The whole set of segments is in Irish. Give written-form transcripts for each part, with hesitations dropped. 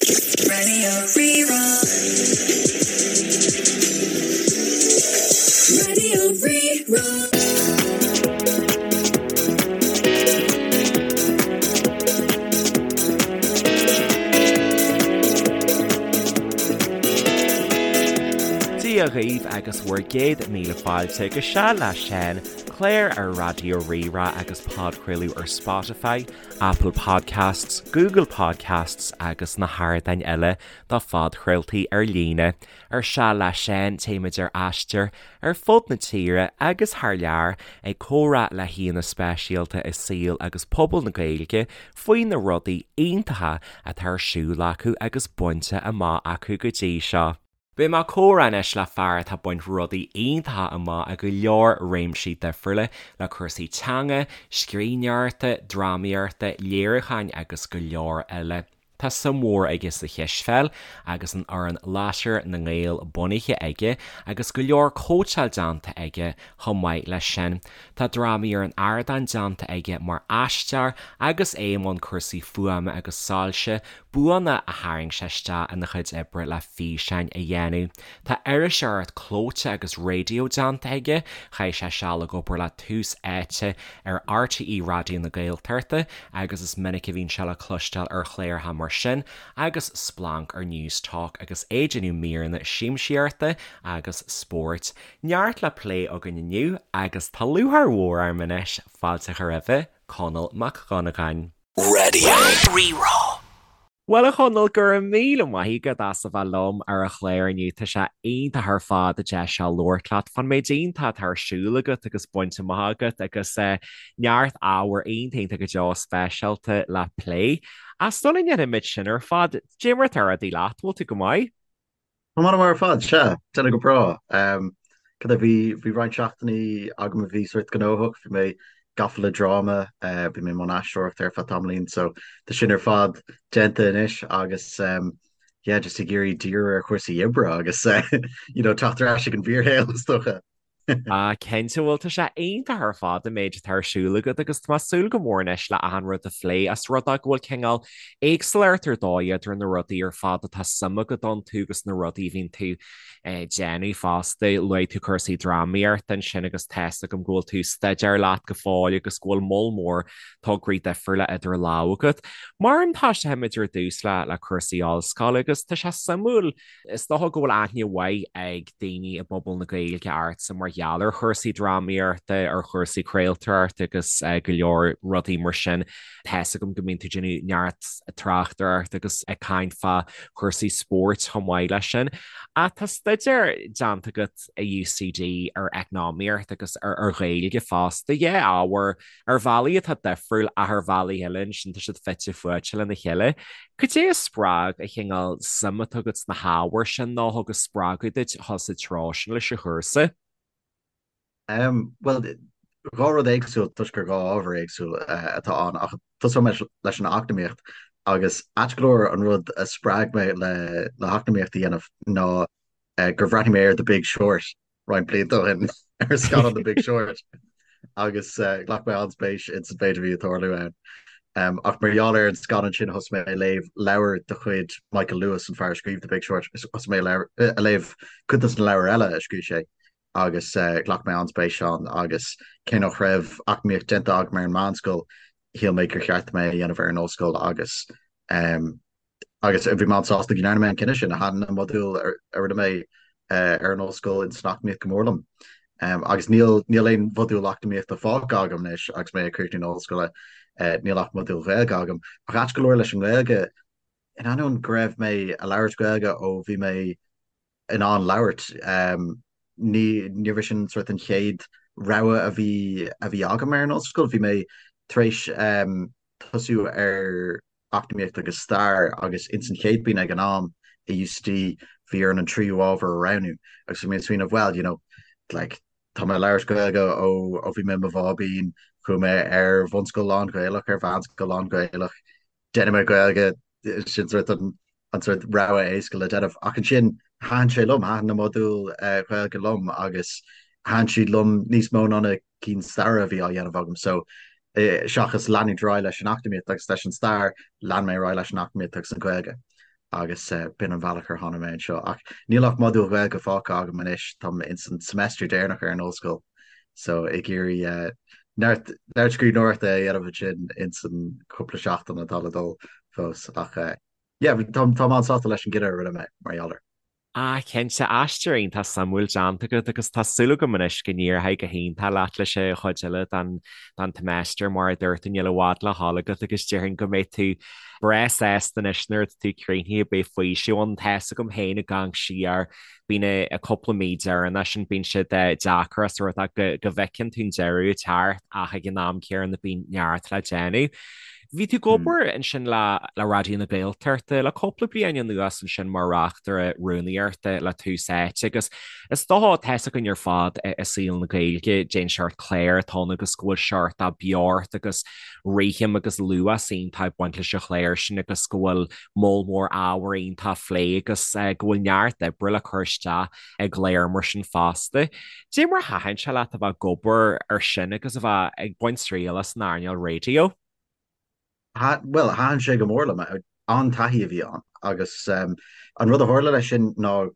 Raidió Rí-Rá. Raidió Rí-Rá. Dia dhaoibh agus bhur gcéad míle fáilte go Seal le Seán, clár ar Raidió Rí-Rá agus podchraoladh ar Spotify, Apple Podcasts, Google Podcasts agus na hardáin eile do phodchraoltaí ar líne. Ar Seal le Seán téimid ar aistear ar fud na tíre agus thar lear ag comhrá le haíonna speisialta i saol agus pobal na Gaeilge faoi na rudaí iontacha atá ar siúl acu agus bainte amach acu go dtí seo. Beidh mé ag comhrá anois le fear atá ag baint rudaí iontacha amach i go leor réimsí difriúla le cúrsaí teanga, scríbhneoireachta, drámaíochta, léiriúcháin agus go leor eile. Tá suim mhór aige sa chispheil agus an fhoireann Lasair na nGael bunaithe aige agus go leor cóitseáil déanta aige chomh maith leis sin. Tá drámaí ar an ardán déanta aige mar aisteoir agus é i mbun cúrsaí fuaime agus soilse, buanna a tharraing sé isteach ina chuid oibre le físeáin a dhéanamh. Tá iriseoireacht clóite agus raidió déanta aige, chaith sé seal ag obair le Tús Áite ar RTÉ Raidió na Gaeltachta agus is minic a bhíonn sé le cloisteáil ar chláracha mar sin agus Splanc ar Newstalk agus é ag déanamh míreanna siamsaíochta agus spóirt. Neart le plé againn inniu agus tá lúcháir mhór orm anois fáilte a chur roimhe, Conall Mac Dhonnagáin. Raidió Rí-Rá. Bhuel a Chonaill, go raibh míle maith agat as a bheith liom ar an chlár inniu. Tá sé iontach ar fad an deis seo labhairt leat fán méid iontach atá ar siúl agat agus bainte amach agat agus neart ábhar iontach iontach go deo speisialta le plé. Ach sula ndéanfaimid sin ar fad, cad é mar atá rudaí leat, bhfuil tú go maith? Tá mé an-mhaith ar fad, sea, déanamh go breá. Cad é, bhí, bhí roinnt seachtainí agam a bhí sórt gnóthach, bhí mé gafa le dráma, bhí mé i mbun aisteoireachta ar feadh tamaillín, so tá sin ar fad déanta anois agus yeah, just ag iarraidh díriú ar chúrsaí oibre agus you know, teacht ar ais ag an bhfíorshaol is dócha. Ah, cinnte, bhuel tá sé iontach ar fad an méid atá ar siúl agat agus tá mé ag súil go mór anois le achan rud a phlé as rud é go bhfuil cineál éagsúlacht ar dóigh idir na rudaí ar fad atá suim agat iontu agus na rudaí a bhíonn tú ag déanamh fosta. Luaigh tú cúrsaí drámaíochta ansin agus tá's agam go bhfuil tú ag staidéar leat go fóill agus go bhfuil moll mór tograí difriúla idir lámha agat. Mar an tosóimid ar dtús le le cúrsaí ollscoile agus tá sé suimiúil Is dócha go bhfuil aithne mhaith ag daoine i bpobal na Gaeilge ortsa mar gheall ar chúrsaí drámaíochta, ar chúrsaí craoltóireachta agus go leor rudaí mar sin. Tá's agam go mbíonn tú ag déanamh neart tráchtaireachta agus ag caint fá chúrsaí spóirt chomh maith leis sin. Ach tá staidéar déanta agat i UCD ar eacnamaíocht agus ar Ghaeilge fosta. Dhá ábhar Ar bhealaí atá difriúil ach ar bhealaí eile ansin tá siad fite fuaite lena chéile. Cad é a spreag an cineál suim atá agat sna hábhair sin nó a thug an spreagadh duit a dhul sa treo sin leis an chúrsa? Bhuel, dhá rud éagsúil toisc gur dhá ábhar éagsúil atá ann ach tosóidh mé leis an eacnamaíocht agus ait go leor an rud a spreag mé le le heacnamaíocht a dhéanamh ná gur bhreathnaigh mé ar The Big Short roinnt blianta ó shin ar scannán The Big Short agus ghlac mé an-spéis ins an mhéid a bhí ag tarlú ann. Ach mar gheall ar an scannán sin thosaigh mé ag léamh leabhar de chuid Michael Lewis, an fear a scríobh The Big Short, thosaigh mé ag léamh cuid de na leabhair eile a scríobh sé agus ghlac mé an-spéis ann agus cé nach raibh eacnamaíocht déanta agam ar an meánscoil, shíl mé gur cheart dom é a dhéanamh ar an ollscoil agus Agus bhí mé an-sásta go ndearna mé an cinneadh sin. Thaitin na modúil a rinne mé ar an ollscoil in san eacnamaíocht go mór liom. Agus níl níl aon mhodúl eacnamaíochta fágtha agam anois agus mé ag críochnú na hollscoile, níl ach modúl Ghaeilge agam. Ach ait go leor leis an nGaeilge, in ainneoin go raibh mé ag labhairt Gaeilge ó bhí mé in ann labhairt, ní níorbh é sin sort an chéad rogha a bhí a bhí agam ar an ollscoil. Bhí mé tar éis tosú ar Eacnamaíocht agus Stair agus ins an chéad bhliain ag an am i UCD bhí orainn an tríú ábhar a roghnú agus bhí mé ag smaoineamh well you know like tá mé ag labhairt Gaeilge ó ó bhí mé i mo bháibín, chuaigh mé ar bhunscoil lán-Ghaelach, ar mheánscoil lán-Ghaelach, déanfaidh mé Gaeilge, sin sort an an sort rogha éasca le déanamh. Ach ansin thaitin sé liom, thaitin na modúil Ghaeilge liom agus thaitin siad liom níos mó ná na cinn staire a bhí á dhéanamh agam. So seachas leanúint ar aghaidh leis an eacnamaíocht agus leis an stair, lean mé ar aghaidh leis an eacnamaíocht agus an Ghaeilge. Agus b'in an bhealach ar tháinig mé anseo. Ach níl ach modúl Gaeilge fágtha agam anois, táim ins an semester deireanach ar an ollscoil so ag iarraidh neart neart scríbhneoireachta a dhéanamh ansin ins an cúpla seachtain atá le dul fós. Ach yeah, táim an-sásta leis an gcinneadh a rinne mé mar gheall air. Ah, cinnte, aistear iontach suimiúil déanta agat agus tá súil agam anois go n-éireoidh go hiontach leat leis an chuid eile den den tseimeastar mar a dúirt tú níl i bhfad le dhul agat agus déarfainn go mbeidh tú breá sásta anois nuair atá tú críochnaithe beidh faoiseamh ann. Tá's agam féin ag amharc siar bíonn an cúpla mí deireanach sin bíonn siad deacair os rud é go go bhfeiceann tú an deireadh ag teacht ach ag an am céanna bíonn neart le déanamh. Bhí tú ag obair ansin le le Raidió na Gaeltachta le cúpla bliain anuas ansin mar reachtaire rúnaíochta le Tús Áite agus is dócha tá's againn ar fad i saol na Gaeilge cén seort clár atá ann agus go bhfuil seort de beocht agus rithim agus luas iontach ag baint leis an chlár sin agus go bhfuil moll mór ábhar iontach á phlé agus go bhfuil neart oibre le cur isteach i gclár mar sin fosta. Dé mar a thaitin sé leat a bheith ag obair ar sin agus a bheith ag baint triail as an earnáil raidió? Bhuel, thaitin sé go mór liom. An-taithí a bhí ann agus an rud a tharla leis sin ná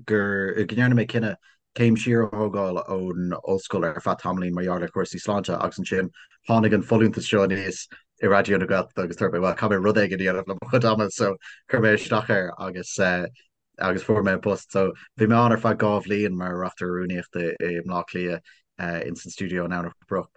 gur go ndearna mé cinneadh céim siar a thógáil ón ollscoil ar feadh tamaillín mar gheall ar chúrsaí sláinte agus ansin tháinig an folúntas seo aníos i Raidió na Gaeltachta agus dúirt mé, bhuel, caithfidh mé rud éigin a dhéanamh le mo chuid ama so chuir mé isteach air agus agus fuair mé an post. So bhí mé ann ar feadh 2 bhliain mar reachtaire rúnaíochta i mBleá Cliath ins an stiúideo in Domhnach Broc.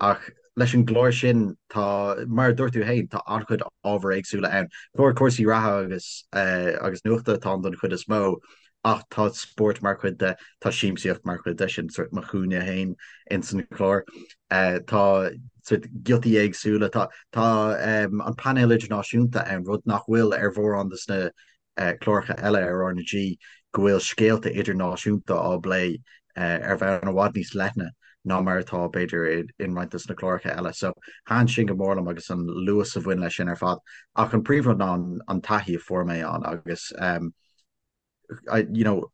Ach leis an gclár sin tá, mar a dúirt tú féin, tá an-chuid ábhair éagsúla ann. Clár cúrsaí reatha agus agus nuachta atá ann don chuid is mó ach tá spórt mar chuid de, tá siamsaíocht mar chuid de, sin sort mo chúinne féin ins an chlár. Tá sort giotaí éagsúla, tá tá an painéal idirnáisiúnta ann, rud nach bhfuil ar mhórán de na cláracha eile ar RnaG go bhfuil scéalta idirnáisiúnta á bplé ar bhonn i bhfad níos leithne ná mar atá, b'fhéidir, in roinnt de na cláracha eile. So, thaitin sin go mór liom agus an luas a bhain leis sin ar fad. Ach an príomhrud ná an taithí a fuair mé ann agus, you know,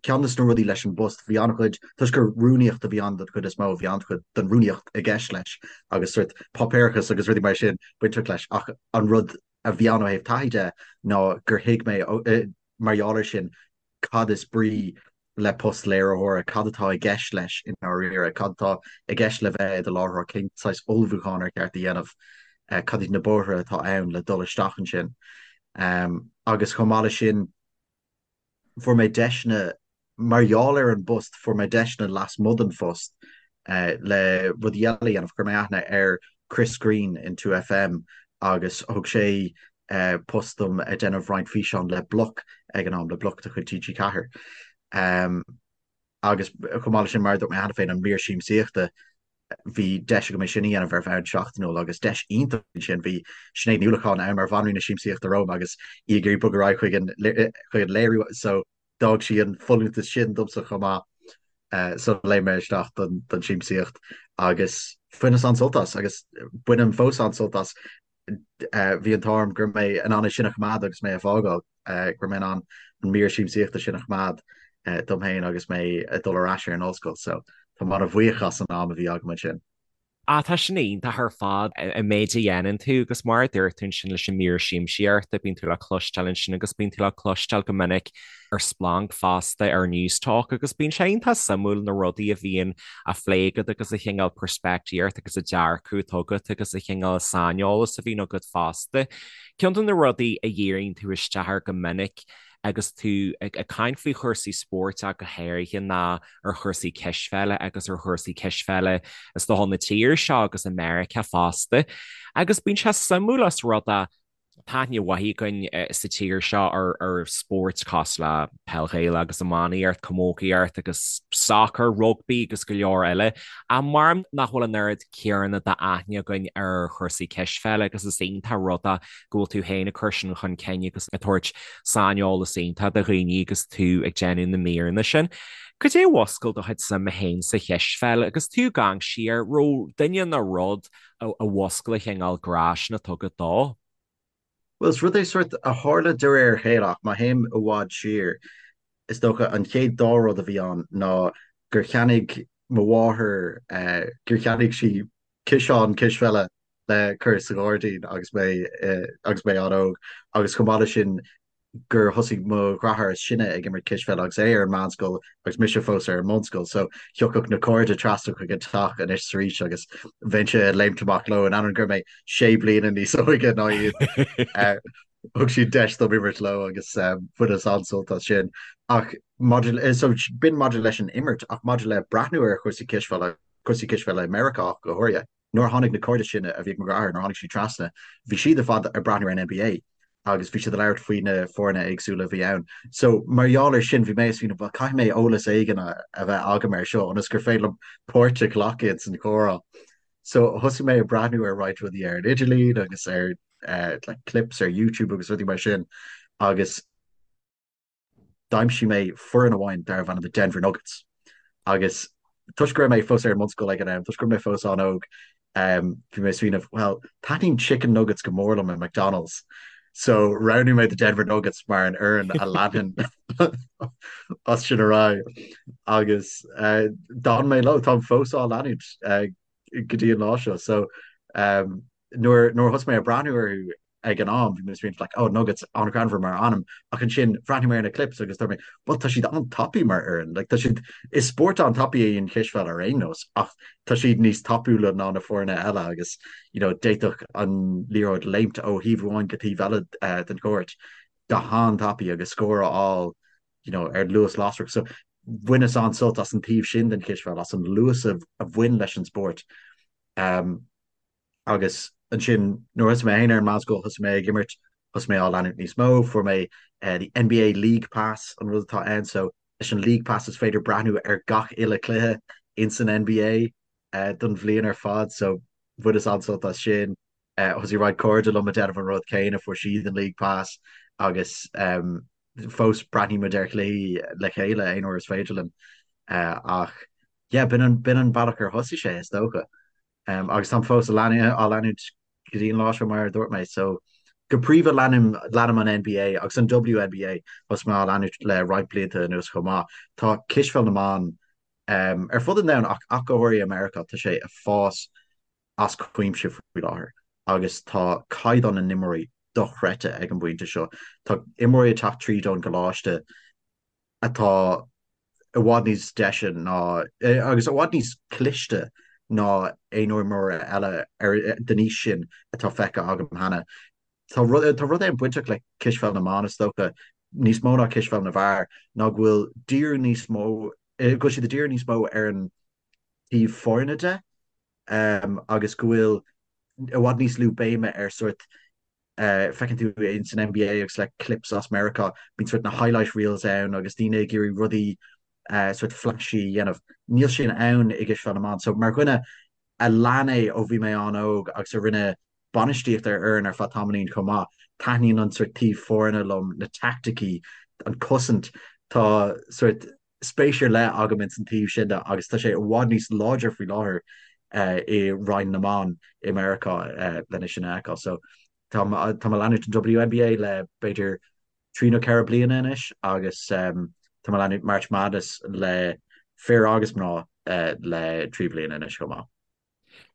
ceann de na rudaí leis an bpost, bhí an-chuid, toisc gur rúnaíocht a bhí ann den chuid is mó, bhí an-chuid den rúnaíocht i gceist leis agus sort páipéarachas agus rudaí mar sin bainteach leis ach an rud a bhí ann ó thaobh taithí de ná gur thuig mé mar gheall air sin cad is brí le post léiritheora, cad atá i gceist leis i ndáiríre, cad atá i gceist le bheith i do láithreoir, cén saghas ullmhúcháin ar cheart a dhéanamh, cad iad na bóithre atá ann le dul isteach ansin. Agus chomh maith leis sin, fuair mé deiseanna, mar gheall ar an bpost, fuair mé deiseanna lasmuigh den phost le rudaí eile a dhéanamh. Chuir mé aithne ar Chris Greene in 2FM agus thug sé post dom ag déanamh roinnt físeán le Bloc ag an am, le Bloc de chuid TG4. Agus chomh maith leis sin, mar a dúirt mé cheana féin, an mír siamsaíochta, bhí deis agam é sin a dhéanamh ar bhonn seachtainiúil agus deis iontach ansin. Bhí Sinéad Ní Uallacháin ann mar bhanríon na siamsaíochta romham agus í ag iarraidh bogadh ar aghaidh chuig an chuig an léiriú so d'fhág sí an folúntas sin domsa chomh maith so léim mé isteach don don siamsaíocht agus bhaineas an-sult as agus bainim fós an-sult as. Bhí an t-ádh orm go raibh mé in ann é sin a choimeád agus mé ag fágáil, go raibh mé in ann an mír siamsaíochta sin a choimeád dom féin agus mé ag dul ar ais ar an ollscoil. So tá mé an-bhuíoch as an am a bhí agam ansin. Ah, tá sin iontach ar fad, an méid a dhéanann tú agus mar a dúirt tú ansin leis an mír siamsaíochta, bíonn tú le cloisteáil ansin agus bíonn tú le cloisteáil go minic ar Splanc fosta, ar Newstalk agus bíonn sé iontach suimiúil na rudaí a bhíonn á phlé agat agus an chineál peirspictíocht agus an dearcadh atá agat agus an chineál saineolas a bhíonn agat fosta. Ceann de na rudaí a dhíríonn tú isteach air go minic agus tú ag caint faoi chúrsaí spóirt ach go háirithe ná ar chúrsaí cispheile agus ar chúrsaí cispheile is dócha na tíre seo agus i Meiriceá fosta. Agus bíonn sé suimiúil os rud é Tá aithne mhaith againn sa tír seo ar spóirt cosúil le peil Ghaelach agus iománaíocht, camógaíocht agus sacar, rugbaí agus go leor eile. Ach mar nach bhfuil an oiread céanna d'aithne againn ar chúrsaí cispheile agus is iontach an rud é go bhfuil tú féin ag cur sin chun cinn agus ag tabhairt saineolas iontach do dhaoine agus tú ag déanamh na míreanna sin. Cad é a mhúscail do chuid suime féin sa chispheil agus tú ag amharc siar, raibh duine nó rud a mhúscail an chineál grá sin atá agat dó. Bhuel, is rud é sort a tharla de réir a chéile ach má théim i bhfad siar, is dócha an chéad dá rud a bhí ann ná gur cheannaigh mo mháthair, gur cheannaigh sí ciseán cispheile le cur sa ghairdín agus mé agus mé an-óg agus chomh maith leis sin. gur thosaigh mo dheartháir is sine ag imirt cispheile agus é ar an meánscoil agus mise fós ar an mbunscoil so thiocfadh na cairde trasna chuig an teach anois is arís agus bheinnse ag léimt amach leo in ainneoin go raibh mé sé bliana níos óige ná iad. Thug siad deis dom imirt leo agus bhaineas an-sult as sin. Ach maidir so b'in maidir leis an imirt ach maidir le breathnú ar chúrsaí cispheile, cúrsaí cispheile i Meiriceá ach go háirithe, Nuair a tháinig na cairde sin a bhí ag mo dheartháir, nuair a tháinig siad trasna, bhí siad ar fad ag breathnú ar an NBA agus bhí siad ag labhairt faoi na foirne éagsúla a bhí ann. So, mar gheall air sin, bhí mé ag smaoineamh, bhuel, caithfidh mé eolas éigin a bheith agam air seo ionas gur féidir liom páirt a ghlacadh ins an chomhrá. So, thosaigh mé ag breathnú ar roinnt rudaí ar an idirlíon agus ar like clips ar YouTube agus rudaí mar sin agus D'aimsigh mé foireann amháin darbh ainm The Denver Nuggets agus toisc go raibh mé fós ar an mbunscoil ag an am, toisc go raibh mé fós an-óg, bhí mé ag smaoineamh, well, taitníonn chicken nuggets go mór liom i McDonald's, so roghnaigh mé The Denver Nuggets mar an fhoireann a leanfainn as sin ar aghaidh agus d'fhan mé leo, táim fós á leanúint go dtí an lá seo. So nuair a thosaigh mé ag breathnú orthu, ag an am, bhí mé ag smaoineamh like, oh, Nuggets, an-ghreannmhar mar ainm, ach ansin bhreathnaigh mé ar na clips agus dúirt mé, well, tá siad an-tapaidh mar fhoireann, like, tá siad, is spórt an-tapaidh é an chispheil ar aon nós, ach tá siad níos tapúla ná na foirne eile agus, you know, d'fhéadfadh an liathróid léimt ó thaobh amháin go taobh eile uh, den chúirt go han-tapaidh agus scór a fháil, you know, ar luas lasrach. So, bhaineas an-sult as an taobh sin den chispheil, as an luas a, a bhain leis an spórt. Um, Agus ansin nuair a thosaigh mé féin ar an meánscoil, thosaigh mé ag imirt, thosaigh mé á leanúint níos mó, fuair mé the NBA League Pass an rud atá ann, so leis an League Pass is féidir breathnú ar gach uile cluiche ins an NBA don bhliain ar fad, so bhaineas an-sult as sin. Thosaigh roinnt cairde liom ag déanamh an rud céanna, fuair siad an League Pass agus fós breathnaímid ar chluichí le chéile aon uair is féidir linn. Ach yeah, b'in an, b'in an bealach ar thosaigh sé is dócha. Agus táim fós á leanúint go dtí an lá seo mar a dúirt mé. So go príomha leanaim leanaim an NBA agus an WNBA thosaigh mé á leanúint le roinnt blianta anuas chomh maith. Tá cispheil na mban ar fud an domhain ach ach go háirithe i Meiriceá tá sé ag fás as cuimse faoi láthair agus tá caighdeán na n-imreoirí dochreidte ag an bpointe seo. Tá imreoirí ag teacht tríd ón gcoláiste atá i bhfad níos deise ná, agus i bhfad níos cliste ná aon imreoir eile ar den aois sin atá feicthe agam cheana. Tá rud tá rud éigin bainteach le cispheil na mban, is dócha, níos mó ná cispheil na bhfear, ná go bhfuil díriú níos mó, go bhfuil siad ag díriú níos mó ar an taobh foirne de, agus go bhfuil i bhfad níos lú béime ar sórt Feiceann tú ins an NBA agus le clips as Meiriceá, bíonn sort na highlight reels ann agus daoine ag iarraidh rudaí sort flashy a dhéanamh. Níl sin ann i gcispheil na mban. So mar dhuine a lean é ó bhí mé an-óg agus a rinne bainistíocht ar fhoireann ar feadh tamaillín chomh maith, taitníonn an sort taobh foirne liom, na teaicticí, an cosaint. Tá sort spéis ar leith agam ins an taobh sin de agus tá sé i bhfad níos láidre faoi láthair i Roinn na mBan i Meiriceá lena sin a fheiceáil. So tá tá mé ag leanúint an WNBA le b'fhéidir trí nó ceithre bliana anois agus tá mé ag leanúint March Madness le fir agus mná le trí bliana anois chomh maith.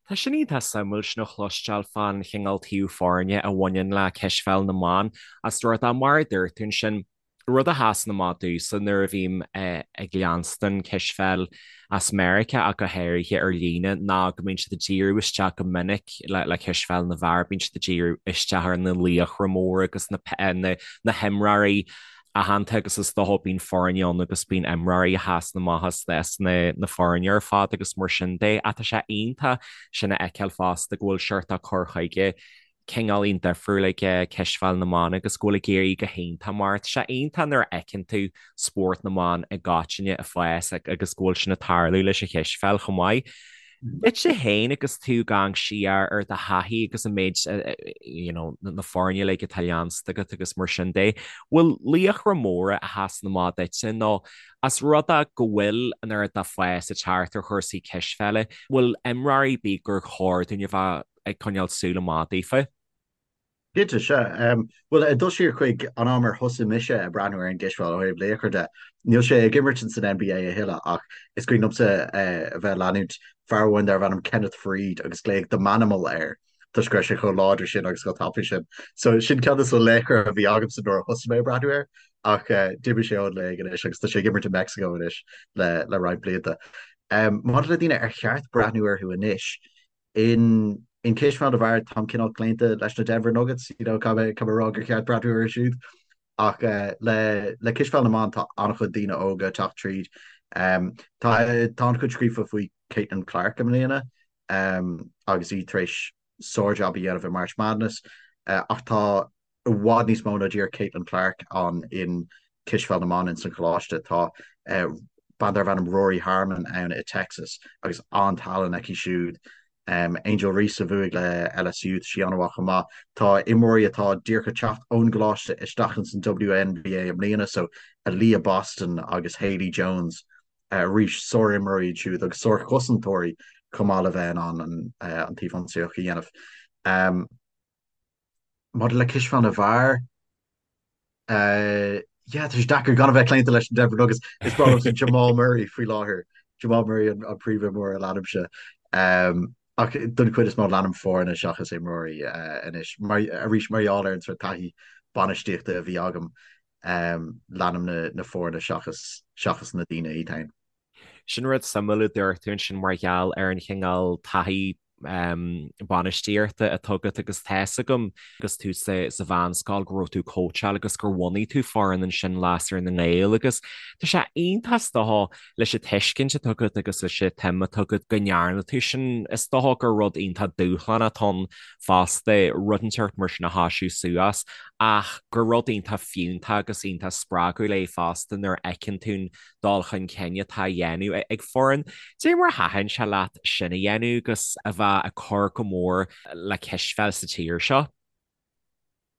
Tá sin iontach suimiúil sin a chloisteáil fán chineál taobh foirne a bhaineann le cispheil na mban. As rud é mar a dúirt tú ansin, rud a sheasann amach domhsa nuair a bhím ag leanstan cispheil as Meiriceá ach go háirithe ar líne ná go mbíonn siad ag díriú isteach go minic le cispheil na bhfear, bíonn siad ag díriú isteach ar na laochra móra agus na na himreoirí aitheanta agus is dócha bíonn foirne ann agus bíonn imreoirí a sheasann amach as na na foirne ar fad agus mar sin de. Ach tá sé iontach sin a fheiceáil fosta go bhfuil seort cur chuige cineáilín difriúil ag cispheil na mban agus go bhfuil ag éirí go hiontach mar tá sé iontach nuair a fheiceann tú spórt na mban i gcoitinne ag fás agus go bhfuil sin ag tarlú leis an chispheil chomh maith. Duitse féin agus tú ag amharc siar ar do thaithí agus an méid you know na foirne uilig atá leansta agat agus mar sin de, bhfuil laochra móra a sheasann amach duitse nó as rud é go bhfuil an oiread de fás ag teacht ar chúrsaí cispheile, bhfuil imreoirí ar bith gur chóir dúinn a bheith ag coinneáil súil amach daofa? Cinnte, sea. Bhuel, ag dul siar chuig an am ar thosaigh mise ag breathnú ar an gcispheil ó thaobh laochra de, níl sé ag imirt ins an NBA a thuilleadh ach is cuimhin liomsa a bheith ag leanúint fear amháin darbh ainm Kenneth Faried agus glaodh The Manimal air. toisc go raibh sé chomh láidir sin agus chomh tapaidh sin. So sin ceann de na laochra a bhí agamsa nuair a thosaigh mé ag breathnú air ach d'imigh sé ón léig anois agus tá sé ag imirt i Meicsiceo anois le le roinnt blianta. Maidir le daoine ar cheart breathnú orthu anois, in in cispheil na bhfear táim cineál claonta leis na Denver Nuggets, you know, caithfidh mé caithfidh mé a rá gur cheart breathnú orthu siúd. Ach le le cispheil na mban tá an-chuid daoine óga ag teacht tríd. Tá tá an-chuid scríofa faoi Caitlin Clark i mbliana agus í tar éis sár-jab a dhéanamh i March Madness ach tá i bhfad níos mó ná díreach Caitlin Clark ann in cispheil na mban ins an choláiste. Tá bean darbh ainm Rori Harmon ann i Texas agus an-tallann aici siúd. Angel Reese a bhuaigh le LSU, tá sí an-mhaith chomh maith. Tá imreoirí atá díreach ag teacht ón gcoláiste isteach ins an WNBA i mbliana, so Aliyah Boston agus Haley Jones, arís sár-imreoirí iad siúd agus sár-chosantóirí chomh maith le bheith in ann an taobh ionsaíoch a dhéanamh. Maidir le cispheil na bhfear, yeah, tá sé deacair gan a bheith claonta leis an Denver Nuggets. Is breá liomsa Jamal Murray faoi láthair. Jamal Murray an príomhimreoir a leanaimse. Ach don chuid is mó leanaim foirne seachas imreoirí anois. Mar, arís, mar gheall ar an sórt taithí bainistíochta a bhí agam, leanaim na foirne seachas seachas na daoine iad féin. Sin rud suimiúil a dúirt tú ansin mar gheall ar an chineál taithí bainistíochta atá agat agus tá fhios agam agus tú sa mheánscoil go raibh tú ag cóitseáil agus gur bhunaigh tú foireann ansin Lasair na nGael agus tá sé iontach is dócha leis an tuiscint atá agat agus leis an tsuim atá agat go ndearna tú sin. Is dócha gur rud iontach dúshlánach atá ann fosta rud inteacht mar sin a thoisiú suas ach gur rud iontach fiúntach agus iontach spreagúil é fosta nuair a fheiceann tú an dul chun cinn atá á dhéanamh ag foireann. Cad é mar a thaitin sé leat sin a dhéanamh agus a bheith ag cur go mór le cispheil sa tír seo?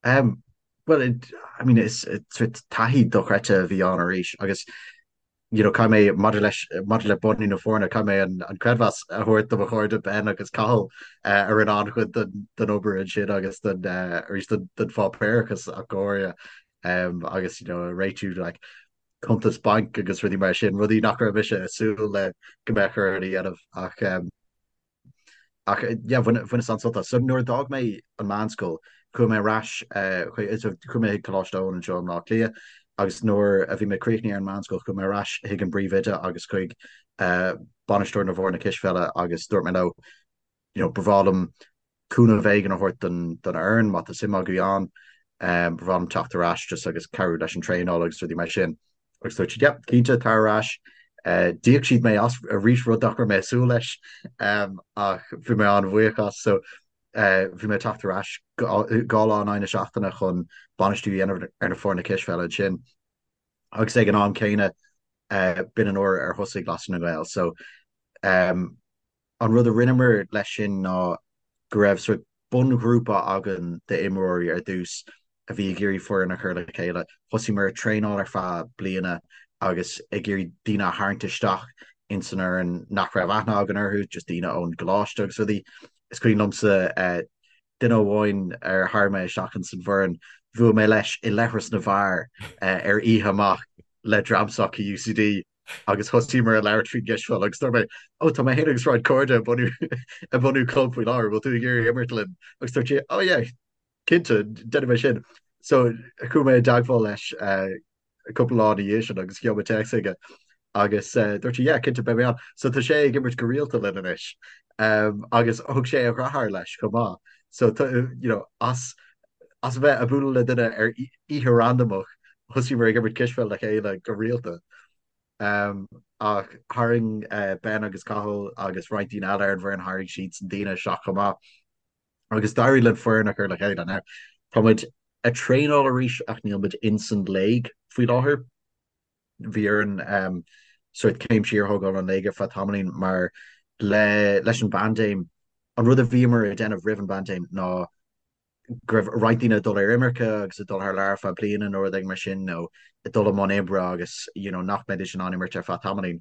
Um, well, it, I mean, is sort taithí dochreidte a bhí ann arís agus you know, caithfidh mé maidir leis maidir le bunú na foirne caithfidh mé an, an creidmheas a thabhairt do mo chairde Ben agus Cathal uh, a rinne an-chuid den, den obair ansin agus den uh, arís den, den pháipéarachas ach go háirithe um, agus you know, réitiú like, cuntas bainc agus rudaí mar sin, rudaí nach raibh mise ag súil le go mbeadh orainn a dhéanamh ach ach yeah bhaineas an-sult as. So nuair a d'fhág mé an meánscoil chuaigh mé ar ais chuaigh mé chuig Coláiste Eoin anseo i mBleá Cliath agus nuair a bhí mé críochnaithe ar an meánscoil chuaigh mé ar ais chuig an bpríomhoide agus chuig bainisteoir na bhfoirne cispheile agus dúirt mé leo you know, ba bhreá liom cúnamh éigin a thabhairt don don fhoireann má tá suim agaibh ann, ba bhreá liom teacht ar ais just agus cabhrú leis an traenáil agus rudaí mar sin. Agus dúirt siad, yep, cinnte, tar ar ais. D'íoc siad mé as arís rud nach raibh mé ag súil leis ach bhí mé an-bhuíoch as. So bhí mé ag teacht ar ais dhá lá in aghaidh na seachtaine chun bainistiú a dhéanamh ar na foirne cispheile ansin. Agus ag an am céanna b'in an uair ar thosaigh Lasair na nGael. So An rud a rinneamar leis sin ná go raibh sort bunghrúpa againn d'imreoirí ar dtús a bhí ag iarraidh foireann a chur le chéile. Thosaíomar ag traenáil ar feadh bliana agus ag iarraidh daoine a tharraingt isteach ins an fhoireann nach raibh aithne againn orthu, just daoine ón gcoláiste agus rudaí. Is cuimhin liomsa duine amháin ar tharraing mé isteach ins an bhfoireann, bhuail mé leis i leithreas na bhfear ar oíche amach le dream s'acu UCD. agus thosaíomar ag labhairt faoin gcispheil agus dúirt mé, 'Ó, tá mé féin agus roinnt cairde ag bunú ag bunú club faoi láthair, bhfuil tú ag iarraidh imirt linn? Agus dúirt sé, 'Ó yeah, cinnte, déanfaidh mé sin. So chuaigh mé i dteagmháil leis cúpla lá ina dhiaidh sin agus gheobh mé téacs aige agus dúirt sé, 'Yeah, cinnte, beidh mé ann. So tá sé ag imirt go rialta linn anois agus thug sé a dheartháir leis chomh maith. So you know, as as a bheith ag bualadh le duine ar oíche randamach thosaíomar ag imirt cispheil le chéile go rialta. Ach tharraing Ben agus Cathal agus roinnt daoine eile ar an bhfoireann, tharraing siadsan daoine isteach chomh maith agus d'éirigh linn foireann a chur le chéile. Now, tá muid ag traenáil arís ach níl muid ins an léig faoi láthair. Bhí orainn sórt céim siar a thógáil ón léig ar feadh tamaillín mar le leis an bpaindéim, an rud a bhíomar ag déanamh roimh an bpaindéim ná go raibh roinnt daoine ag dul ar imirce agus ag dul thar lear ar feadh bliana nó rud éigin mar sin nó ag dul i mbun oibre agus you know nach mbeidís in ann imirt ar feadh tamaillín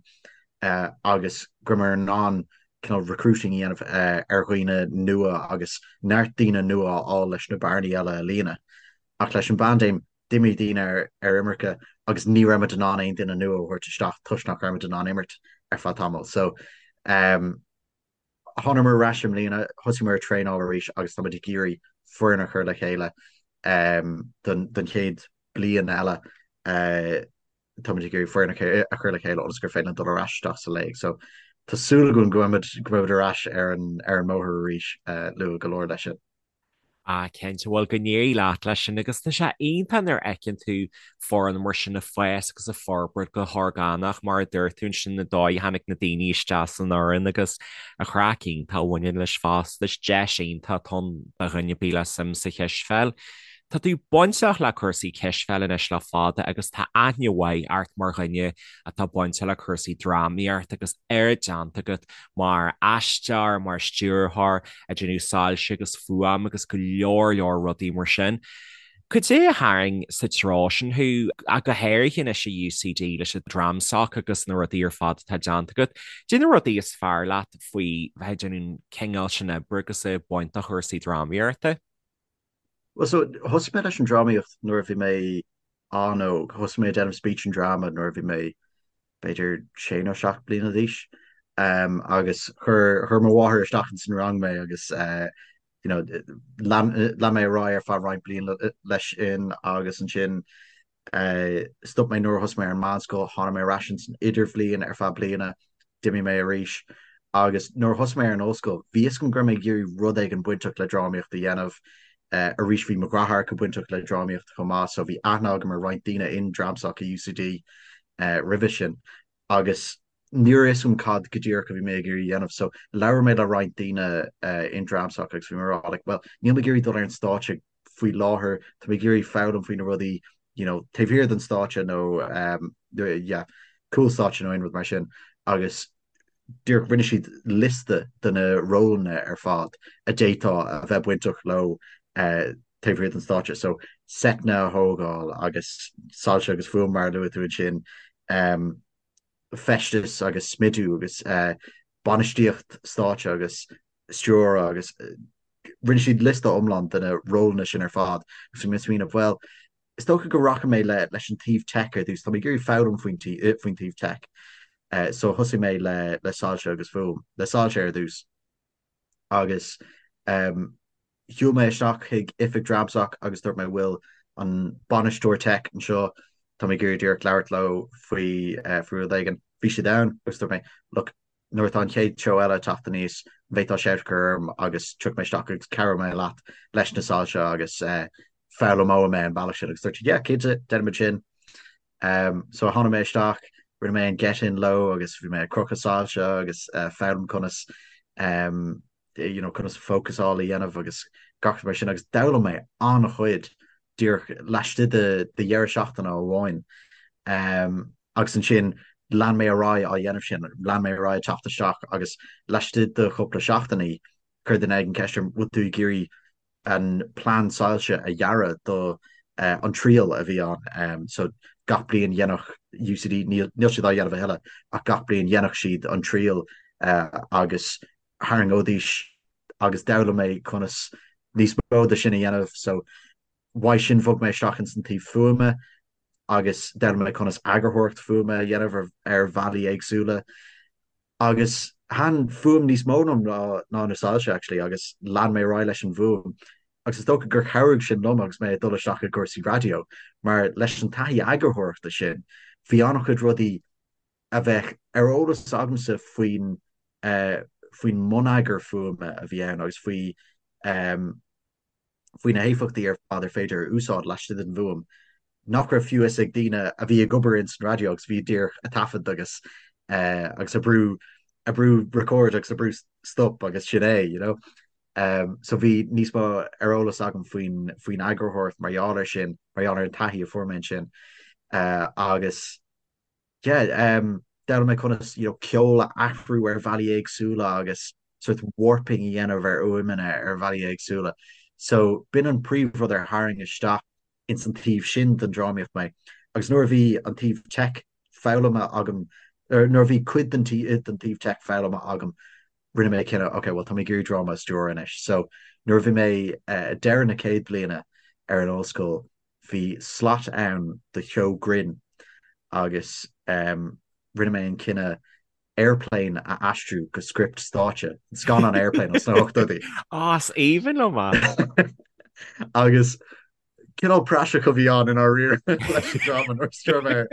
agus go rabhamar in ann cineál recruiting a dhéanamh ar dhaoine nua agus neart daoine nua a fháil leis na bearnaí eile a líonadh. Ach leis an bpaindéim d'imigh daoine ar ar imirce agus ní raibh muid in ann aon duine nua a thabhairt isteach toisc nach raibh muid in ann imirt ar feadh tamaill. So um. Thánamar ar ais i mbliana, thosaíomar ag traenáil arís agus táimid ag iarraidh foireann a chur le chéile don chéad bliain eile. Táimid ag iarraidh foireann a chur le chéile ionas gur féidir linn dul ar ais isteach sa léig. So tá súil againn go mbeimid ar ais ar an mbóthar arís luath go leor leis sin. Ah, cinnte, bhuel, go n-éirí leat leis sin agus tá sé iontach nuair a fheiceann tú foireann mar sin ag fás agus ag forbairt go horgánach mar a dúirt tú ansin na dóigh a tháinig na daoine isteach san fhoireann agus an chraic iontach a bhaineann leis fosta. Is deis iontach atá ann do dhuine ar bith le suim sa chispheil. Tá tú bainteach le cúrsaí cispheile anois le fada agus tá aithne mhaith ort mar dhuine atá bainteach le cúrsaí drámaíochta agus oiread déanta agat mar aisteoir, mar stiúrthóir, ag déanamh soilse agus fuaim agus go leor leor rudaí mar sin. Cad é a tharraing sa treo sin thú, ach go háirithe anois i UCD leis an DramSoc agus na rudaí ar fad atá déanta agat? Cad é na rudaí is fearr leat faoi bheith ag déanamh an cineál sin oibre agus ag baint de chúrsaí drámaíochta? Well so thosaigh mé leis an drámaíocht nuair a bhí mé an-óg. Thosaigh mé ag déanamh speech and drama nuair a bhí mé b'fhéidir sé nó seacht bliana d'aois. Um, agus chuir chuir mo mháthair isteach ins an rang mé agus uh, you know, lean lean mé ar aghaidh ar feadh roinnt bliain leis sin agus ansin Stop mé nuair a thosaigh mé ar an meánscoil, tháinig mé ar ais ins an idirbhliain ar feadh bliana, d'imigh mé arís agus nuair a thosaigh mé ar an ollscoil, bhí fhios agam go raibh mé ag iarraidh rud éigin bainteach le drámaíocht a dhéanamh. Arís bhí mo dheartháireacha bainteach le drámaíocht chomh maith so bhí aithne agam ar roinnt daoine in Dramsoc i UCD roimhe sin agus ní raibh fhios agam cad go díreach a bhí mé ag iarraidh a dhéanamh so labhair mé le roinnt daoine in Dramsoc agus bhí mé ag rá like well níl mé ag iarraidh dul ar an stáitse faoi láthair, tá mé ag iarraidh foghlaim faoi na rudaí you know taobh thiar den stáitse nó um, yeah, cúl stáitse nó aon rud mar sin agus díreach rinne siad liosta de na rólanna ar fad a d'fhéadfá a bheith bainteach leo uh, taobh thiar den stáitse. So seiteanna a thógáil agus soilse agus fuaim mar a luaigh tú ansin um, feisteas agus smidiú agus bainistíocht stáitse agus stiúradh agus rinne siad liosta iomlán de na rólanna sin ar fad agus bhí mé ag smaoineamh, bhuel, is dócha go rachaidh mé le leis an taobh tech ar dtús, tá mé ag iarraidh foghlaim faoin faoin taobh tech. So thosaigh mé le le soilse agus fuaim, le soilse ar dtús agus Shiúil mé isteach chuig oifig Dramsoc agus dúirt mé bhfuil an bainisteoir tech anseo, tá mé ag iarraidh díreach labhairt leo faoi faoi rud éigin. Bhí siad ann agus dúirt mé look, nuair atá an chéad seó eile ag teacht aníos, an bhféadfá shout a chur orm agus tiocfaidh mé isteach agus cabhróidh mé leat leis na soilse agus foghlaimeoidh mé an bealach sin agus dúirt siad yeah, cinnte, déanfaimid sin. Um, so tháinig mé isteach, rinne mé an get in leo agus bhí mé ag crochadh soilse agus uh, foghlaim conas um, you know, conas fócasáil a dhéanamh agus gach rud mar sin agus d'fhoghlaim mé an-chuid díreach laistigh de de dheireadh seachtaine amháin. Um, agus ansin lean mé ar aghaidh á dhéanamh sin, lean mé ar aghaidh ag teacht isteach agus laistigh de chúpla seachtainí chuir duine éigin ceist orm bhfuil tú ag iarraidh an plean soilse a dhearadh do an triail a bhí ann. So gach bliain dhéanfadh UCD, níl siad á dhéanamh a thuilleadh, ach gach bliain dhéanfadh siad an triail agus tharraingeoidís agus d'fhoghlaim mé conas níos mó de sin a dhéanamh. So uaidh sin bhog mé isteach ins an taobh fuaime agus d'fhoghlaim mé conas eagarthóireacht fuaime a dhéanamh ar bhealaí éagsúla. Agus thaitin fuaim níos mó liom ná na soilse actually agus lean mé ar aghaidh leis an bhfuaim agus is dócha gur chabhraigh sin liom agus mé ag dul isteach i gcúrsaí raidió mar leis an taithí eagarthóireachta sin bhí an-chuid rudaí a bheadh ar eolas agamsa faoin faoin mbonneagar fuaime a bhí ann agus faoi faoi na héifeachtaí ar fad ar féidir a úsáid laistigh den bhfuaim nach raibh fiú fhios ag daoine a bhí ag obair ins an raidió agus bhí díreach ag taifead agus agus ag brú ag brú record agus ag brú stop agus sin é, you know. Um, so bhí níos mó ar eolas agam faoin faoin eagarthóireacht mar gheall air sin, mar gheall ar an taithí a fuair mé ansin. Uh, agus yeah, um, d'fhoghlaim mé conas you know, ceol a athrú ar bhealaí éagsúla agus sort warping a dhéanamh ar fhuaimeanna ar bhealaí éagsúla. So b'in an príomhrud ar tharraing isteach ins an taobh sin den drámaíocht mé. Agus nuair a bhí an taobh tech foghlamtha agam, er, nuair a bhí cuid den den taobh tech foghlamtha agam, rinne mé cinneadh, ok, well tá mé ag iarraidh dráma a stiúradh anois. So nuair a bhí mé uh, deireadh na céad bliana ar an ollscoil, bhí slot ann do sheó grinn agus um, rinne mé an cinneadh. Airplane a aistriú go script stáitse, an scannán Airplane as na hochtóidí. Á, is aoibhinn liom é! Agus cineál praiseach a bhí ann i ndáiríre leis an dráma nuair a stiúir mé air.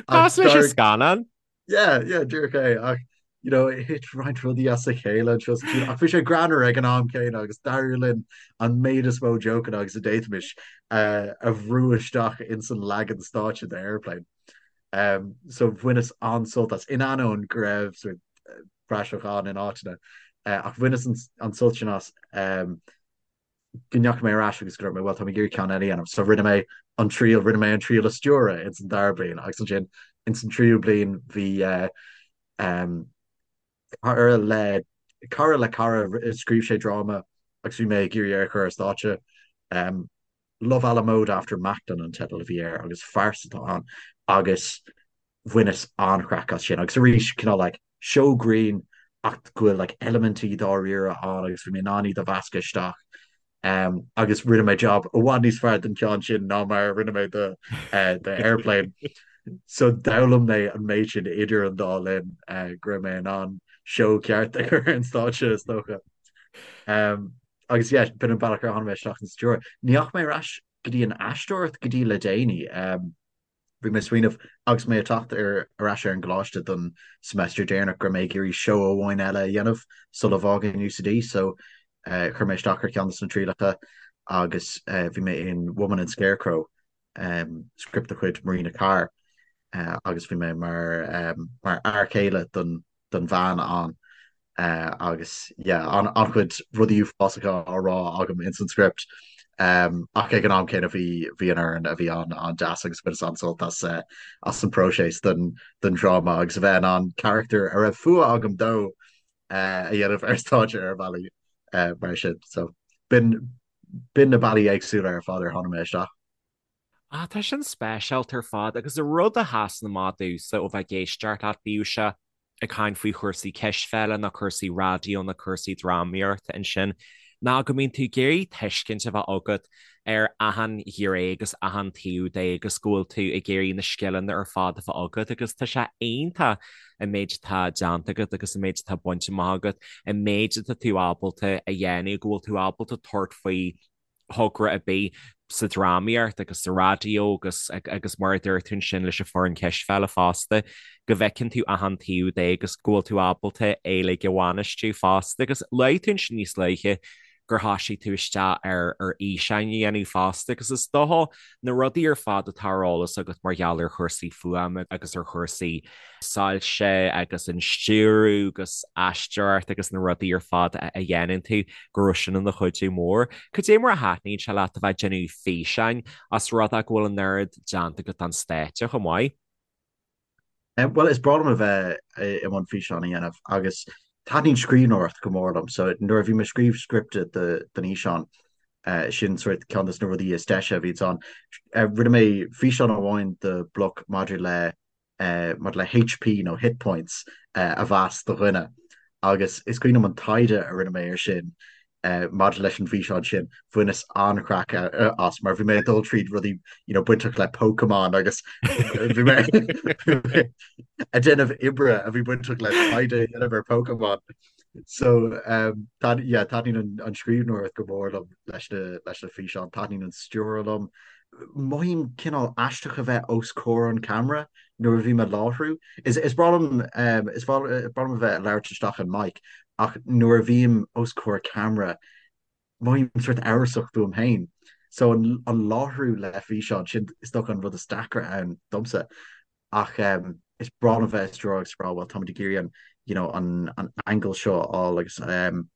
Cosúil leis an scannán. Yeah, yeah, díreach é. Ach, you know, thit roinnt rudaí as a chéile anseo is ansiúd. Ach bhí sé greannmhar ag an am céanna agus d'éirigh linn an méid is mó jokeanna agus a d'fhéadfaimis a bhrú isteach ins an leagan stáitse de Airplane. Um, so bhaineas an-sult as, in ainneoin go raibh sort of praiseach ann in áiteanna. Uh, ach bhaineas an, an sult sin as um, go ndeachaigh mé ar ais agus go raibh mé, well, tá mé ag iarraidh ceann eile a dhéanamh. So rinne mé an triail, rinne mé an triail a stiúradh ins an dara bliain agus ansin ins an tríú bliain bhí uh, um, cara le cara le cara scríobh sé dráma agus bhí mé ag iarraidh é a chur ar stáitse. Um, Love à la Mode After Macklin an teideal a bhí air agus farsa atá ann agus bhaineas an-chraic as sin agus arís cineál like seó grinn ach go bhfuil like eilimintí dáiríre ann agus bhí mé in ann iad a mheascadh isteach um, agus rinne mé job i bhfad níos fearr den cheann sin ná mar a rinne mé do, uh, do Airplane. So d'fhoghlaim mé an méid sin idir an dá linn uh, go raibh mé in ann seó ceart a chur ar an stáitse is dócha. Um, Agus yeah, b'in an bealach ar tháinig mé isteach sa stiúradh. Ní dheachaigh mé ar ais go dtí an aisteoireacht go dtí le déanaí. Bhí mé ag smaoineamh agus mé ag teacht ar ar ais ar an gcoláiste don semester deireanach go raibh mé ag iarraidh seó amháin eile a dhéanamh sula bhfágainn UCD so chuir mé isteach ar cheann de na trialacha agus bhí mé in Woman and Scarecrow, script de chuid Marina Carr agus bhí mé mar mar fhear céile don don bhean ann agus yeah an-chuid rudaí uafásacha á rá agam ins an script ach ag an am céanna bhí bhí an fhoireann a bhí ann an-deas agus bhaineas an-sult as as an próiseas don don dráma agus a bheith in ann carachtar a raibh fuath agam dó a dhéanamh ar stáitse ar bhealaí mar sin so b'in b'in na bealaí éagsúla ar fad ar tháinig mé isteach. Ah, tá sin speisialta ar fad agus an rud a sheasann amach domhsa ó bheith ag éisteacht leat, bíodh sé ag caint faoi chúrsaí cispheile nó cúrsaí raidió nó cúrsaí drámaíochta ansin, ná go mbíonn tú ag iarraidh tuiscint a bheith agat ar achan ghné agus achan taobh de agus go bhfuil tú ag iarraidh na scileanna ar fad a bheith agat agus tá sé iontach an méid atá déanta agat agus an méid atá bainte amach agat, an méid atá tú ábalta a dhéanamh, go bhfuil tú ábalta tabhairt faoi thogra ar bith sa drámaíocht agus sa raidió agus agus mar a dúirt tú ansin leis an foireann cispheile fosta, go bhfeiceann tú achan taobh de agus go bhfuil tú ábalta é uilig a bhainistiú fosta. Agus luaigh tú ansin níos luaithe gur thoisigh tú isteach ar ar fhíseáin a dhéanamh fosta agus is dócha na rudaí ar fad atá ar eolas agat mar gheall ar chúrsaí fuaime agus ar chúrsaí soilse agus an stiúradh agus aisteoireacht agus na rudaí ar fad a dhéanann tú, go raibh sin ina chuidiú mór. Cad é mar a thaitníonn sé leat a bheith ag déanamh físeáin os rud é go bhfuil an oiread déanta agat don stáitse chomh maith? Bhuel, is breá liom a bheith i mbun físeán a dhéanamh agus taitníonn scríbhneoireacht go mór liom. So nuair a bhí mé ag scríobh scripte don fhíseán, sin sort ceann de na rudaí is deise a bhíonns ann. Rinne mé físeán amháin do Bloc maidir le maidir le HP nó hit points a mheas do dhuine agus is cuimhin liom an taighde a rinne mé ar sin maidir leis an bhfíseán sin, bhaineas an-chraic as mar bhí mé ag dul tríd rudaí you know bainteach le Pokémon agus bhí mé ag déanamh oibre a bhí bainteach le taighde a dhéanamh ar Pokémon. So um, yeah, taitníonn an scríbhneoireacht go mór liom leis na leis na físeáin, taitníonn an stiúradh liom. Mothaím cineál aisteach a bheith os comhair an camera nuair a bhím ag láithriú. Is is breá liom um, is breá liom a bheith ag labhairt isteach an mic ach nuair a bhím os comhair camera mothaím sort amhrasach fúm féin. So an, an láithriú le físeán sin is dócha an rud is deacra ann domsa. Ach um, is breá liom a bheith ag stiúradh agus rá well táimid ag iarraidh an you know, an, an angle seo a fháil agus um,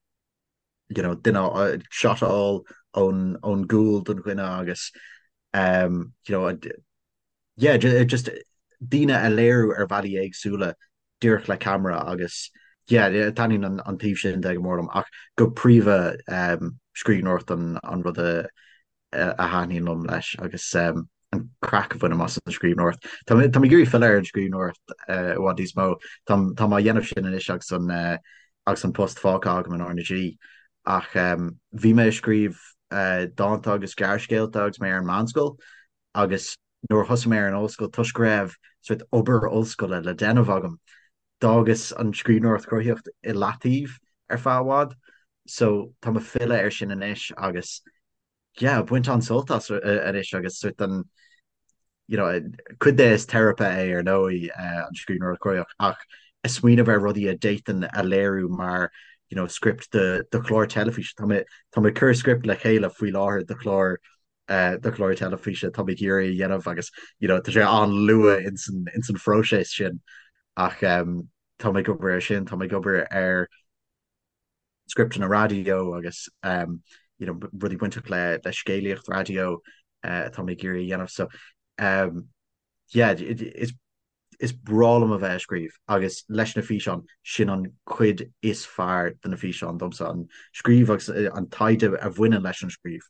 you know, duine shot a fháil ón ón gcúl don dhuine agus um, you know, yeah, just daoine a léiriú ar bhealaí éagsúla díreach le ceamara agus yeah, taitníonn an, an taobh sin de go mór liom ach go príomha um, scríbhneoireacht an, an rud a a thaitníonn liom leis agus an craic a bhainim as an scríbhneoireacht. Tá mé ag iarraidh filleadh ar an scríbhneoireacht i bhfad níos mó. Tá mé á dhéanamh sin anois agus an agus an post fágtha agam in RnaG ach bhí mé ag scríobh dánta agus gearrscéalta agus mé ar an meánscoil agus nuair a thosaigh mé ar an ollscoil toisc go raibh sort obair ollscoile le déanamh agam. D'fhágas an scríbhneoireacht chruthaitheach i leataobh ar feadh i bhfad so tá mé ag filleadh air sin anois agus yeah, ag baint an-sult as anois agus sort an you know, cuid de is teiripe é ar ndóigh an scríbhneoireacht chruthaitheach ach ag smaoineamh ar rudaí a d'fhéadfainn a léiriú mar you know, script do, do chlár teilifíse. Tá mé, tá mé ag cur script le chéile faoi láthair do chlár do chlár teilifíse atá mé ag iarraidh a dhéanamh agus you know, tá sé an-luath ins an, ins an phróiseas sin ach um, tá mé ag obair ar sin, tá mé ag obair ar scripteanna raidió agus um, you know, rudaí bainteach le, le scéalaíocht raidió uh, atá mé ag iarraidh a dhéanamh. So um, yeah, is Is breá liom a bheith ag scríobh agus leis na físeáin, sin an chuid is fearr de na físeáin domsa, an scríobh agus an taighde a bhaineann leis an scríobh.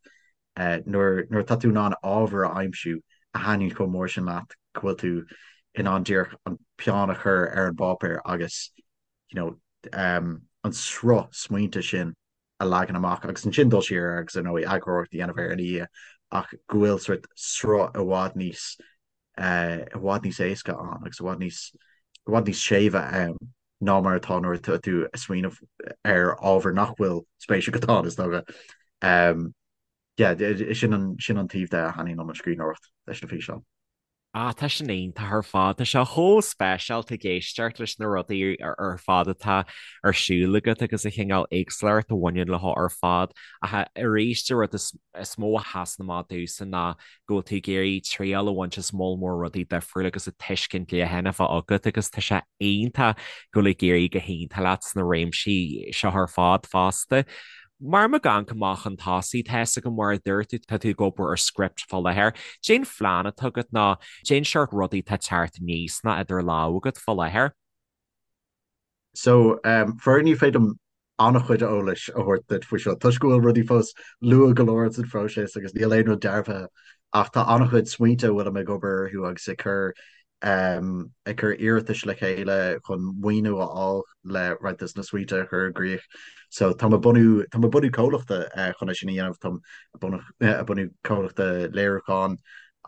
Nuair atá tú in ann ábhar a aimsiú a thaitníonn chomh mór sin leat go bhfuil tú in ann díreach an peann a chur ar an bpáipéar agus you know an sruth smaointe sin a leagan amach agus ansin dul siar air agus ar ndóigh eagarthóireacht a dhéanamh air ina dhiaidh ach go bhfuil sort sruth i bhfad níos i bhfad níos éasca ann agus i bhfad níos i bhfad níos séimhe ann ná mar atá nuair atá tú ag smaoineamh ar ábhar nach bhfuil spéis agat ann is dócha. Um, yeah, sin an, sin an taobh de a thaitníonn liom an scríbhneoireacht leis na físeáin. Ah, tá sin iontach ar fad. Tá sé chomh speisialta ag éisteacht leis na rudaí ar fad atá ar siúl agat agus an chineál éagsúlacht a bhaineann leo ar fad. Ach arís, an rud is mó a sheasann amach domhsa ná go bhfuil tú ag iarraidh triail a bhaint as moll mór rudaí difriúla agus an tuiscint leathan a bheith agat agus tá sé iontach go bhfuil ag éirí go hiontach leat sna réimsí seo ar fad fosta. Mar muid ag amharc amach chun tosaigh, tá fhios agam mar a dúirt tú, tá tú ag obair ar script fá láthair. Cén phlean atá agat nó cén seort rudaí atá ag teacht aníos nó idir lámha agat fá láthair. So, faraor ní féidir liom an-chuid eolais a thabhairt duit faoi seo toisc go bhfuil rudaí fós luath go leor sa phróiseas agus níl aon rud dearbhaithe ach tá an-chuid smaointe a bhfuilim ag obair orthu agus ag cur ag cur iarratais le chéile chun maoiniú a fháil le roinnt de na smaointe a chur i gcrích. So tá mé ag bunú tá mé ag bunú comhlachta chun é sin a dhéanamh, táim ag bunú comhlachta léiriúcháin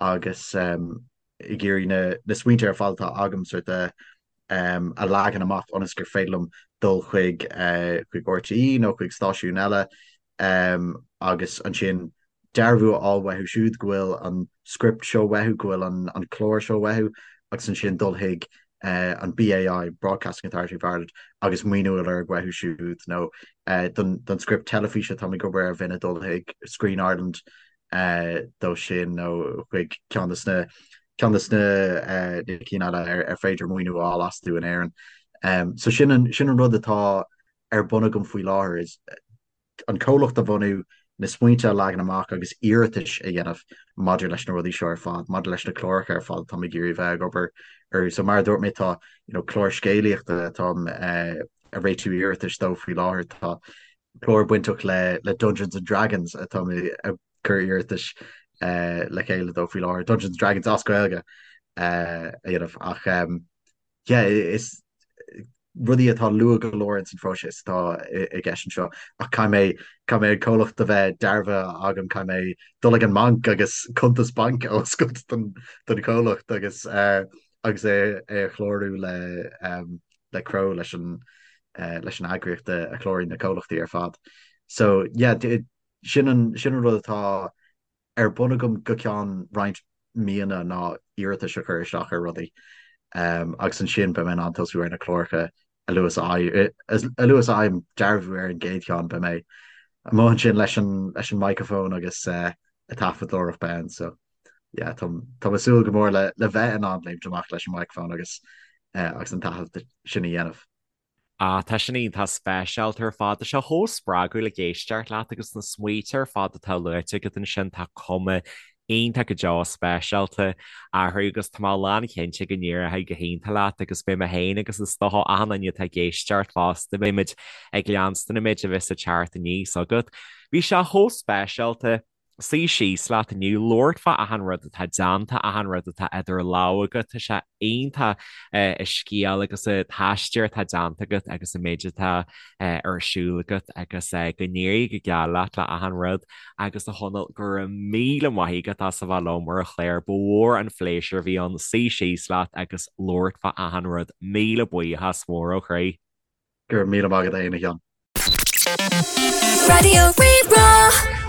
agus ag iarraidh na na smaointe ar fad atá agam sort a a leagan amach ionas gur féidir liom dul chuig chuig RTÉ nó chuig stáisiún eile agus ansin dearbhú a fháil uathu siúd go bhfuil an script seo uathu, go bhfuil an an clár seo uathu agus ansin dul chuig an BAI, Broadcasting Authority of Ireland, agus maoiniú a lorg uathu siúd nó don don script teilifíse táim ag obair air bheinn ag dul chuig Screen Ireland dó sin nó chuig ceann de na ceann de na cinn eile ar féidir maoiniú a fháil astu in Éirinn. So sin an sin an rud atá ar bun agam faoi láthair is an comhlacht a bhunú, na smaointe a leagan amach agus iarratais a dhéanamh maidir leis na rudaí seo ar fad, maidir leis na cláracha ar fad atá mé ag iarraidh bheith ag obair orthu. So mar a dúirt mé tá you know, clár scéalaíochta atáim ag réitiú iarratais dó faoi láthair, tá clár bainteach le le Dungeons and Dragons atá mé ag cur iarratais le chéile dó faoi láthair, Dungeons and Dragons as Gaeilge a dhéanamh ach yeah, is rudaí atá luath go leor ins an phróiseas atá i gceist anseo ach caithfidh mé caithfidh mé an comhlacht a bheith dearbhaithe agam, caithfidh mé dul ag an mbanc agus cuntas bainc a oscailt don don chomhlacht agus agus é é a chlárú le le CRO leis an leis an eagraíocht a chláraíonn na comhlachtaí ar fad. So yeah, sin an sin an rud atá ar bun agam go ceann roinnt míonna ná iarratais a chur isteach ar rudaí agus ansin beidh mé in ann tosú ar na cláracha a luaithe is a luaithe is a fhaighim dearbhú ar an gcéad cheann beidh mé amuigh ansin leis an leis an microphone agus ag taifeadóireacht ann so yeah tá tá mé ag súil go mór le le bheith in ann léimt amach leis an microphone agus agus an taifead sin a dhéanamh. Ah, tá sin iontach speisialta ar fad. Tá sé chomh spreagúil ag éisteacht leat agus na smaointe ar fad atá luaite agat ansin, tá cuma iontach go deo speisialta orthu agus tá mé lánchinnte go n-éireoidh go hiontach leat agus beidh mé féin agus is dócha achan duine atá ag éisteacht fosta, beidh muid ag leanstan an méid a bheas ag teacht aníos agat. Bhí sé chomh speisialta. suí síos leat inniu, labhairt fá achan rud atá déanta, achan rud atá idir lámha agat. Tá sé iontach an scéal agus an t-aistear atá déanta agat agus an méid atá ar siúl agat agus go n-éirí go geal leat le achan rud agus a Chonaill, go raibh míle maith agat as a bheith liom ar an chlár. Ba mhór an phléisiúr a bhí ann suí síos leat agus labhairt fá achan rud. Míle buíochas mór ó chroí. Go raibh míle maith agat a Sheáin. Raidió Rí-Rá.